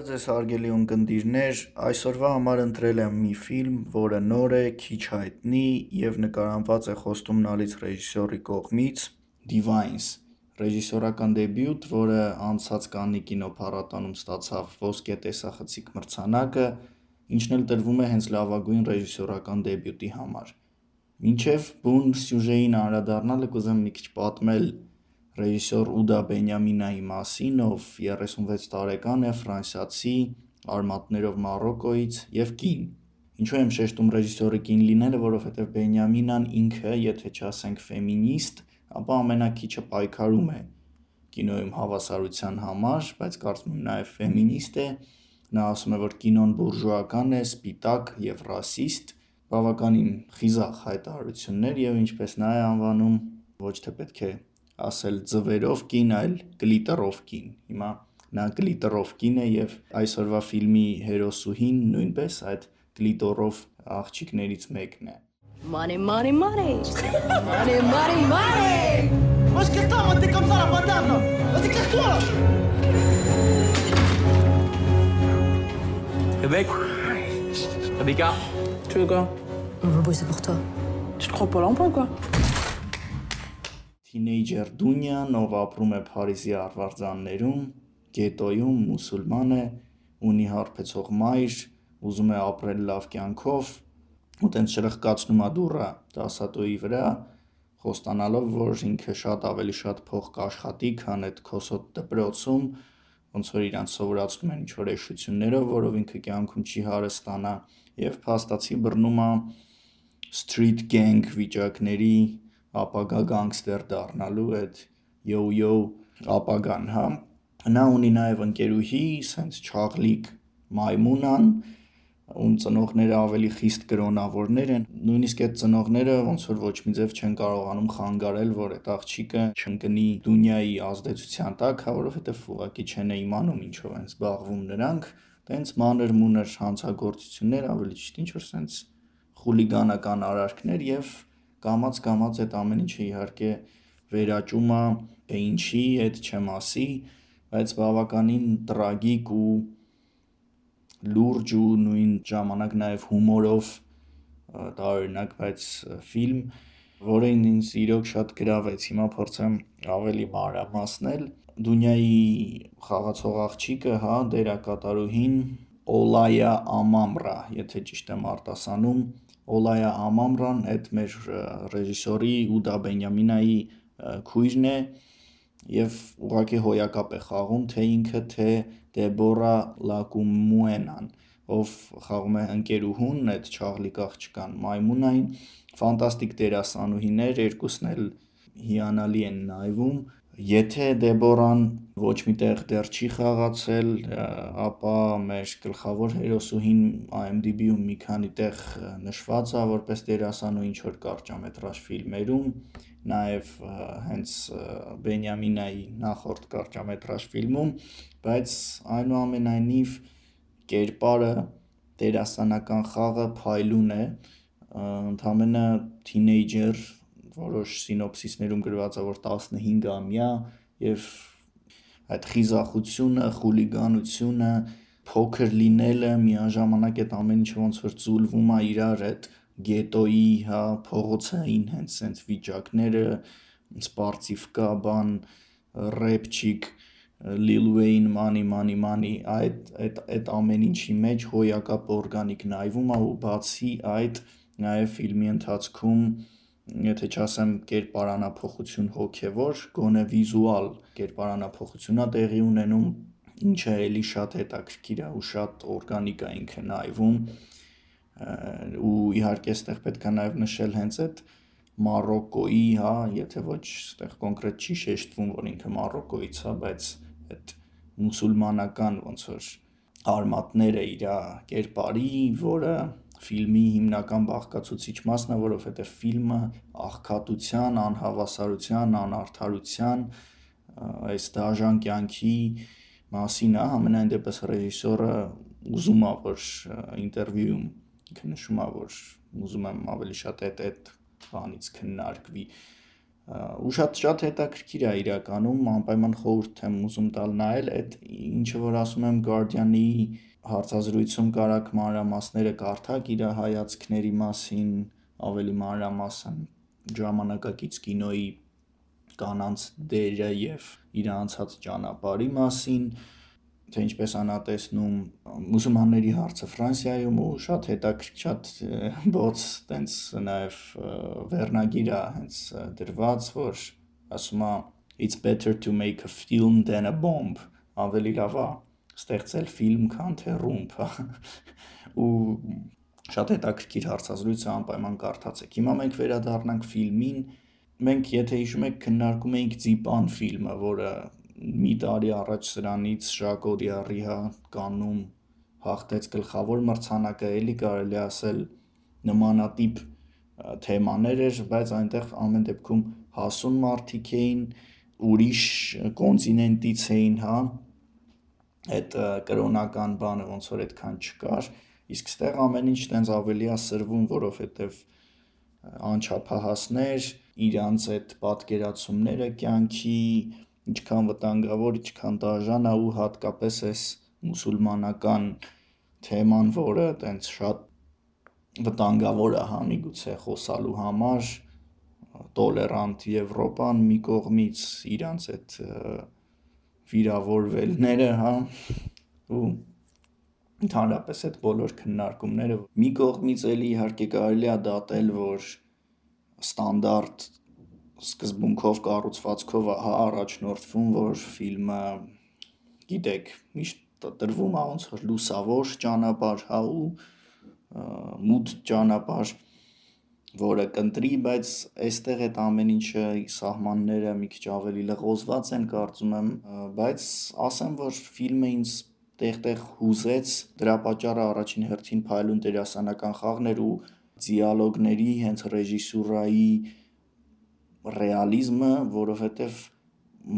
ձեզ հարգելի ունկնդիրներ, այսօրվա համար ընտրել եմ մի ֆիլմ, որը նոր է, քիչ հայտնի և նկարահանված է խոստումնալից ռեժիսորի կողմից՝ Divines, ռեժիսորական դեբյուտ, որը անցած Կաննի կինոփառատոնում ստացավ ոսկե տեսախցիկ մրցանակը, ինչն էլ տրվում է հենց լավագույն ռեժիսորական դեբյուտի համար։ Մինչև բուն սյուժեին անդրադառնալը կուզեմ մի քիչ պատմել ռեժիսոր Ուդա Բենյամինայի մասին, ով 36 տարեկան է, ֆրանսիացի, արմատներով Մարոկկոից և կին։ Ինչու եմ շեշտում ռեժիսորի կին լինելը, որովհետև Բենյամինան ինքը, եթե չասենք ֆեմինիստ, ապա ամենաքիչը պայքարում է կինոյում հավասարության համար, բայց կարծում եմ նաև ֆեմինիստ է։ Նա ասում է, որ կինոն բուրժուական է, սպիտակ և ռասիստ, բավականին խիզախ հայտարարություններ և ինչպես նա է անվանում, ոչ թե պետք է ասել ձվերով կին, այլ գլիտերով կին։ Հիմա նա գլիտերով կին է և այսօրվա ֆիլմի հերոսուհին նույնպես այդ գլիտերով աղջիկներից մեկն է։ Money, money, money. Money, money, money. Wesh, qu'est-ce que t'as, t'es comme ça la patate là? Vas-y, casse-toi là! Rebecca, tu veux quoi? On va bosser pour toi. Tu te crois pas l'emploi quoi? Թինեյջեր Դունյան, ով ապրում է Փարիզի արվարձաններում, գետոյում, մուսուլման է, ունի հարբեցող մայր, ուզում է ապրել լավ կյանքով, ու տենց շրխկացնում է դուռը դասատուի վրա, խոստանալով, որ ինքը ավելի շատ փող կաշխատի, քան այդ քոսոտ դպրոցում, ոնց որ իրանց սովորացնում են ինչ-որ էշություններով, որով ինքը կյանքում չի հարստանա, և փաստացի բռնում է street gang վիճակների ապագա գանգստեր դառնալու այդ յո-յո ապագան, հա։ Նա ունի նաև ընկերուհի, սենց չաղլիկ մայմունան, ում ծնողները ավելի խիստ կրոնավորներ են, նույնիսկ այդ ծնողները ոնց որ ոչ մի ձև չեն կարողանում խանգարել, որ այդ աղջիկը չընկնի Դունյայի ազդեցության տակ, հա, որովհետև ուղղակի չեն իմանում ինչով են զբաղվում նրանք, տենց մանր-մունր հանցագործություններ, ավելի ճիշտ ինչ-որ սենց խուլիգանական արարքներ և կամաց-կամաց այդ ամեն ինչը իհարկե վերաճում է, թե ինչի, այդ չեմ ասի, բայց բավականին տրագիկ ու լուրջ ու նույն ժամանակ նաև հումորով տարօրինակ, բայց ֆիլմ, որը ինձ իրոք շատ գրավեց, հիմա փորձեմ ավելի մանրամասնել։ Դունյայի խաղացող աղջիկը, հա, դերակատարուհին Օլայա Ամամրա, եթե ճիշտ եմ արտասանում, Օլայա Ամամրան այդ մեր ռեժիսորի Ուդա Բենյամինայի քույրն է և ուղղակի հոյակապ է խաղում թե ինքը, թե Դեբորա Լակումուենան, ով խաղում է ընկերուհուն, այդ չաղլիկ աղջկան մայմունային, ֆանտաստիկ դերասանուհիներ, երկուսն էլ հիանալի են նայվում։ Եթե Դեբորան ոչ մի տեղ դեռ չի խաղացել, ապա մեր գլխավոր հերոսուհին IMDb-ում մի քանի տեղ նշված է որպես դերասանուհի ինչ-որ կարճամետրաժ ֆիլմերում, նաև հենց Բենյամինայի նախորդ կարճամետրաժ ֆիլմում, բայց այնուամենայնիվ կերպարը, դերասանական խաղը փայլուն է, ընդամենը թինեյջեր, որոշ սինոպսիսներում գրված է, որ 15-ամյա և այդ խիզախությունը, խուլիգանությունը, փոքր լինելը, միաժամանակ այդ ամեն ինչը ոնց որ ձուլվում է իրար այդ գետոյի, հա, փողոցային հենց սենց վիճակները, սպարծիվկա բան, ռեպչիկ, Lil Wayne, money, այդ ամեն ինչի մեջ հոյակապ օրգանիկ նայվում է ու բացի այդ նաև ֆիլմի ընթացքում, եթե չասեմ կերպարանափոխություն հոգևոր, գոնե վիզուալ կերպարանափոխություն է տեղի ունենում, ինչը էլի շատ հետաքրքիր է ու շատ օրգանիկ է ինքը նայվում, ու իհարկե այստեղ պետք է նաև նշել հենց այդ Մարոկկոյի, հա, եթե ոչ այստեղ կոնկրետ չի շեշտվում, որ ինքը Մարոկկոյից է, բայց այդ մուսուլմանական ոնց որ արմատները իր կերպարի, որը ֆիլմի հիմնական բաղկացուցիչ մասն է, որովհետև ֆիլմը աղքատության, անհավասարության, անարդարության, այս դաժան կյանքի մասին է, համենայն դեպս ռեժիսորը ուզում է, որ ինտերվյուում ինքը նշում է, որ ուզում եմ ավելի շատ այդ բանից քննարկվի, ու շատ հետաքրքիր է իրականում, անպայման խորհուրդ եմ ուզում տալ նայել այդ ինչը որ ասում եմ Guardian-ի հարցազրույցում կարաք մանրամասները կարդաք իր հայացքների մասին, ավելի մանրամասն ժամանակակից կինոյի կանանց դերը եւ իր անցած ճանապարհի մասին, թե ինչպես անա տեսնում մուսուլմանների հարցը Ֆրանսիայում ու շատ հետաքրքիր շատ բոց տենց նաև վերնագիր է հենց դրված, որ ասում է it's better to make a film than a bomb, ավելի լավ է ստեղծել ֆիլմ, քան թե ռումբ, ու շատ հետաքրքիր հարցազրույց է, անպայման կարդացեք։ Հիմա մենք վերադառնանք ֆիլմին, մենք եթե հիշում եք քննարկում էինք Ձիպան ֆիլմը, որը մի տարի առաջ սրանից Ժակոդի Առիհա կաննում հաղթեց գլխավոր մրցանակը, էլի կարելի ասել նմանատիպ թեմաներ էր, բայց այնտեղ ամեն դեպքում հասուն մարդիկ էին, ուրիշ կոնտինենտից էին, հա, այդ կրոնական բանը ոնց որ այդքան չկար, իսկ ստեղ ամեն ինչ տենց ավելի է սրվում, որովհետև անչափահասներ, իրանց այդ պատկերացումները կյանքի ինչքան վտանգավոր, ինչքան դաժան է ու հատկապես այս մուսուլմանական թեման, որը տենց շատ վտանգավոր է, հա, միգուցե խոսալու համար, տոլերանտ Եվրոպան մի կողմից, իրանց այդ վիրավորվելները, հա, ու ընդհանրապես այդ բոլոր քննարկումները մի կողմից էլի իհարկե կարելի է դատել, որ ստանդարտ սկզբունքով կառուցվածքով առաջնորդվում, որ ֆիլմը, գիտեք, միշտ տրվում է ոնց որ լուսավոր ճանապարհ, հա, ու մութ ճանապարհ, որը կընտրի, բայց այստեղ այդ ամեն ինչը սահմանները մի քիչ ավելի լղոզված են, կարծում եմ, բայց ասեմ, որ ֆիլմը ինձ տեղ-տեղ հուզեց, դրա պատճառը առաջին հերթին փայլուն դերասանական խաղն էր ու դիալոգների, հենց ռեժիսուրայի ռեալիզմը, որովհետև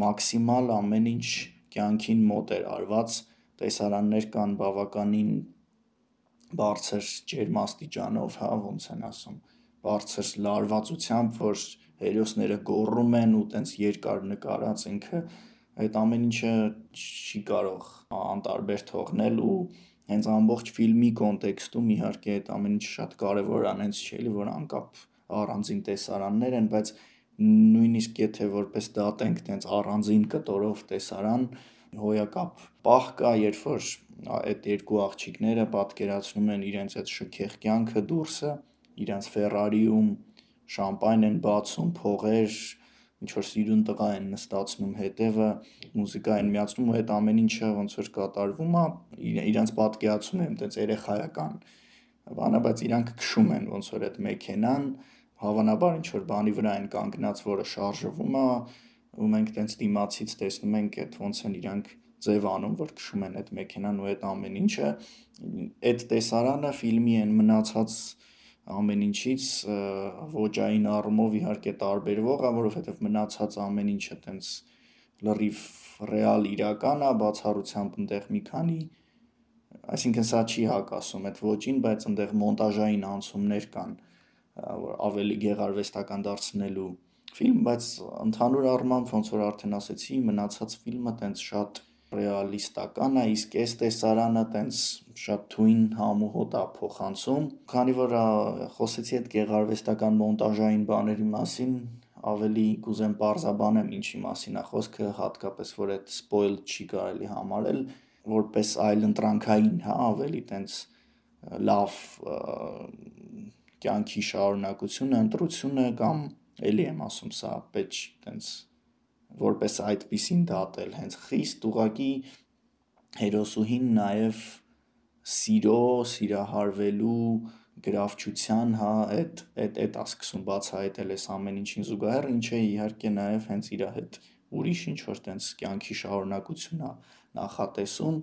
մաքսիմալ ամեն ինչ կյանքին մոտ էր արված, տեսարաններ կան բավականին բարձր ջերմաստիճանով, հա, ոնց են ասում, բարձր լարվածությամբ, որ հերոսները գոռում են ու տենց երկար նկարած ինքը, այդ ամեն ինչը չի կարող անտարբեր թողնել ու հենց ամբողջ ֆիլմի կոնտեքստում իհարկե այդ ամեն ինչը շատ կարևոր է, հենց չի էլի, որ անկապ առանձին տեսարաններ են, բայց նույնիսկ եթե որպես դատենք տենց առանձին կտորով տեսարան, հոյակապ պահ կա, երբ որ այդ երկու աղջիկները պատկերացնում են իրենց այդ շքեղ կյանքը դուրսը, իրենց Ֆերարիում շամպայն են բացում, փողեր, ինչ որ սիրուն տղա են նստացնում հետևը, մուզիկա են միացնում ու այդ ամեն ինչը ոնց որ կատարվում է, իրենց պատկերացում են տենց երեխայական բանը, բայց իրանք քշում են ոնց որ այդ մեքենան, հավանաբար ինչ որ բանի վրա են կանգնած, որը շարժվում է, ու մենք տենց դիմացից տեսնում ենք այդ ոնց են իրանք ձև անում, որ քշում են այդ մեքենան ու այդ ամեն ինչը, այդ տեսարանը ֆիլմի են մնացած ամեն ինչից ոճային առումով իհարկե տարբերվող է, որովհետև մնացած ամեն ինչը տենց լրիվ ռեալ իրական է, բացառությամբ այնտեղ մի քանի, այսինքն սա չի հակասում այդ ոճին, բայց այնտեղ մոնտաժային անցումներ կան, որ ավելի գեղարվեստական դարձնելու ֆիլմ, բայց ընդհանուր առմամբ ոնց որ արդեն ասեցի, մնացած ֆիլմը տենց շատ ռեալիստական է, իսկ այս տեսարանը տենց շատ թույն համ ու հոտ է փոխանցում, քանի որ խոսեցի այդ գեղարվեստական մոնտաժային բաների մասին, ավելի կուզեմ պարզաբանեմ ինչի մասին է խոսքը, հատկապես որ այդ սպոյլ չի կարելի համարել, որպես այլընտրանքային, հա, ավելի տենց լավ կյանքի շարունակությունը, ընտրությունը կամ էլի եմ ասում, սա պետք տենց որպես այդպիսին դատել, հենց խիստ ուղղակի հերոսուհին նաև սիրո, սիրահարվելու, գրավչության, հա, այդ է սկսում բացահայտել այս ամեն ինչին զուգահեռ, ինչը իհարկե նաև հենց իր հետ ուրիշ ինչ որ տենց կյանքի շարունակություն է նախատեսում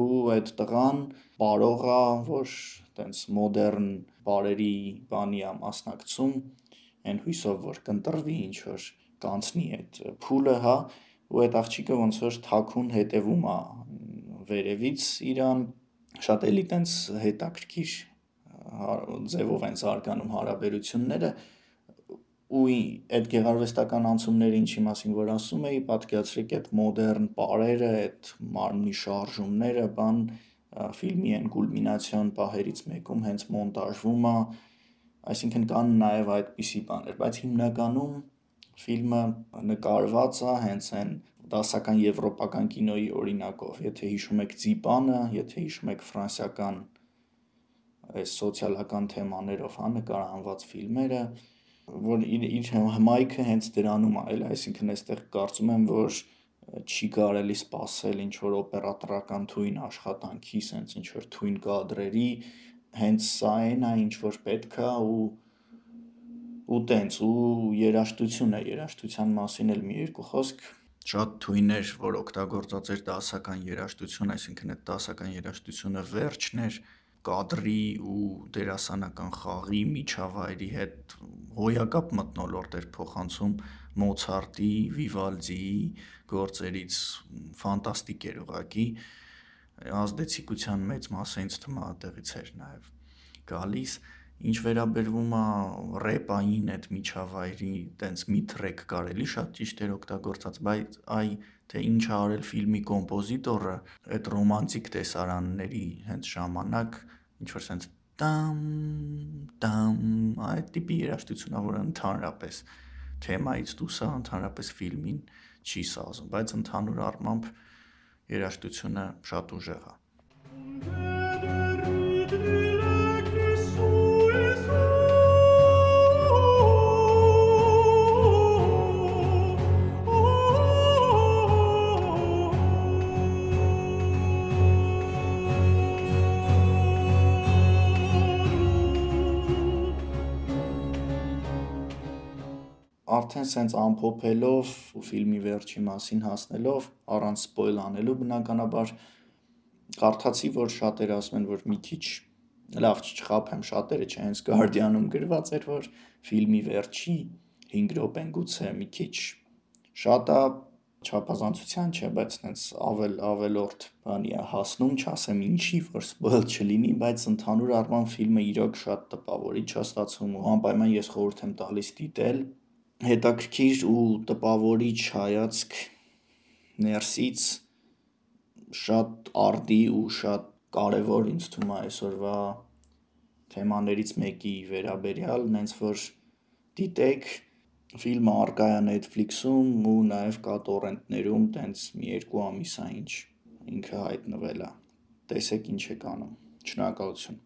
ու այդ տղան պարող է, որ տենց մոդեռն բարերի բանի է մասնակցում, այն հույսով որ կընտրվի ինչ որ կանցնի այդ փուլը, հա, ու այդ աղջիկը ոնց որ թաքուն հետևում է վերևից իրան, շատ էլի տենց հետաքրքիր ձևով են զարգանում հարաբերությունները ու այդ գեղարվեստական անցումները ինչի մասին որ ասում էի, պատկերացրեք այդ մոդեռն պարերը, այդ մարմնի շարժումները, ֆիլմի այն կուլմինացիոն պահերից մեկում հենց մոնտաժվում է, այսինքն կան նաև այդպիսի բաներ, բայց հիմնականում ֆիլմը նկարված է հենց այն դասական եվրոպական կինոյի օրինակով, եթե հիշում եք Ձիպանը, եթե հիշում եք ֆրանսիական այս սոցիալական թեմաներով նկարահանված ֆիլմերը, որ իր հմայքը հենց դրանում է, այսինքն այստեղ կարծում եմ, որ չի կարելի սպասել ինչ-որ օպերատորական թույն աշխատանքի, սենց ինչ-որ թույն կադրերի, հենց սա այն է, ինչ-որ պետք է ու տենց, ու երաժշտության մասին էլ մի երկու խոսք, շատ թույն էր, որ օգտագործած էր դասական երաժշտություն, այսինքն այդ դասական երաժշտությունը վերջն էր, կադրի ու դերասանական խաղի միջավայրի հետ հոյակապ մթնոլորտ էր փոխանցում Մոցարտի, Վիվալդիի գործերից, ֆանտաստիկ էր ուղղակի, ազդեցիկության մեծ մասը ինձ թվում է այդտեղից էր նաև գալիս, ինչ վերաբերվում է ռեպային այդ միջավայրի, տենց մի թրեք կարելի շատ ճիշտ էր օգտագործած, բայց թե ինչ ա արել ֆիլմի կոմպոզիտորը, այդ ռոմանտիկ տեսարանների հենց ժամանակ, ինչ-որ սենց տամ, այդ տիպի երաժշտությունն է, որը ընդհանրապես թեմայից դուրս է, ընդհանրապես ֆիլմին չի սազում, բայց ընդհանուր առմամբ երաժշտությունը շատ ուժեղ է։ Արդեն սենց ամփոփելով ու ֆիլմի վերջի մասին հասնելով, առանց սպոյլ անելու բնականաբար, կարդացի, որ շատերը ասում են, որ մի քիչ, լավ չխաբեմ, շատերը չէ, հենց Guardian-ում գրված էր, որ ֆիլմի վերջի 5 րոպեն գուցե մի քիչ շատ է, չափազանցության չէ, բայց հենց ավելորդ բանի է հասնում, չասեմ ինչի, որ սպոյլ չլինի, բայց ընդհանուր առմամբ ֆիլմը իրոք շատ տպավորիչ է ստացվում ու անպայման ես խորհուրդ եմ տալիս դիտել, հետաքրքիր ու տպավորիչ հայացք ներսից, շատ արդի ու շատ կարևոր ինձ թվում է այսօրվա թեմաներից մեկի վերաբերյալ, նենց որ դիտեք, ֆիլմը առկա է Netflix-ում ու նաև կա տորենտներում, տենց մի 2 ամիս է ինչ ինքը հայտնվել է, տեսեք ինչ եք անում, շնորհակալություն։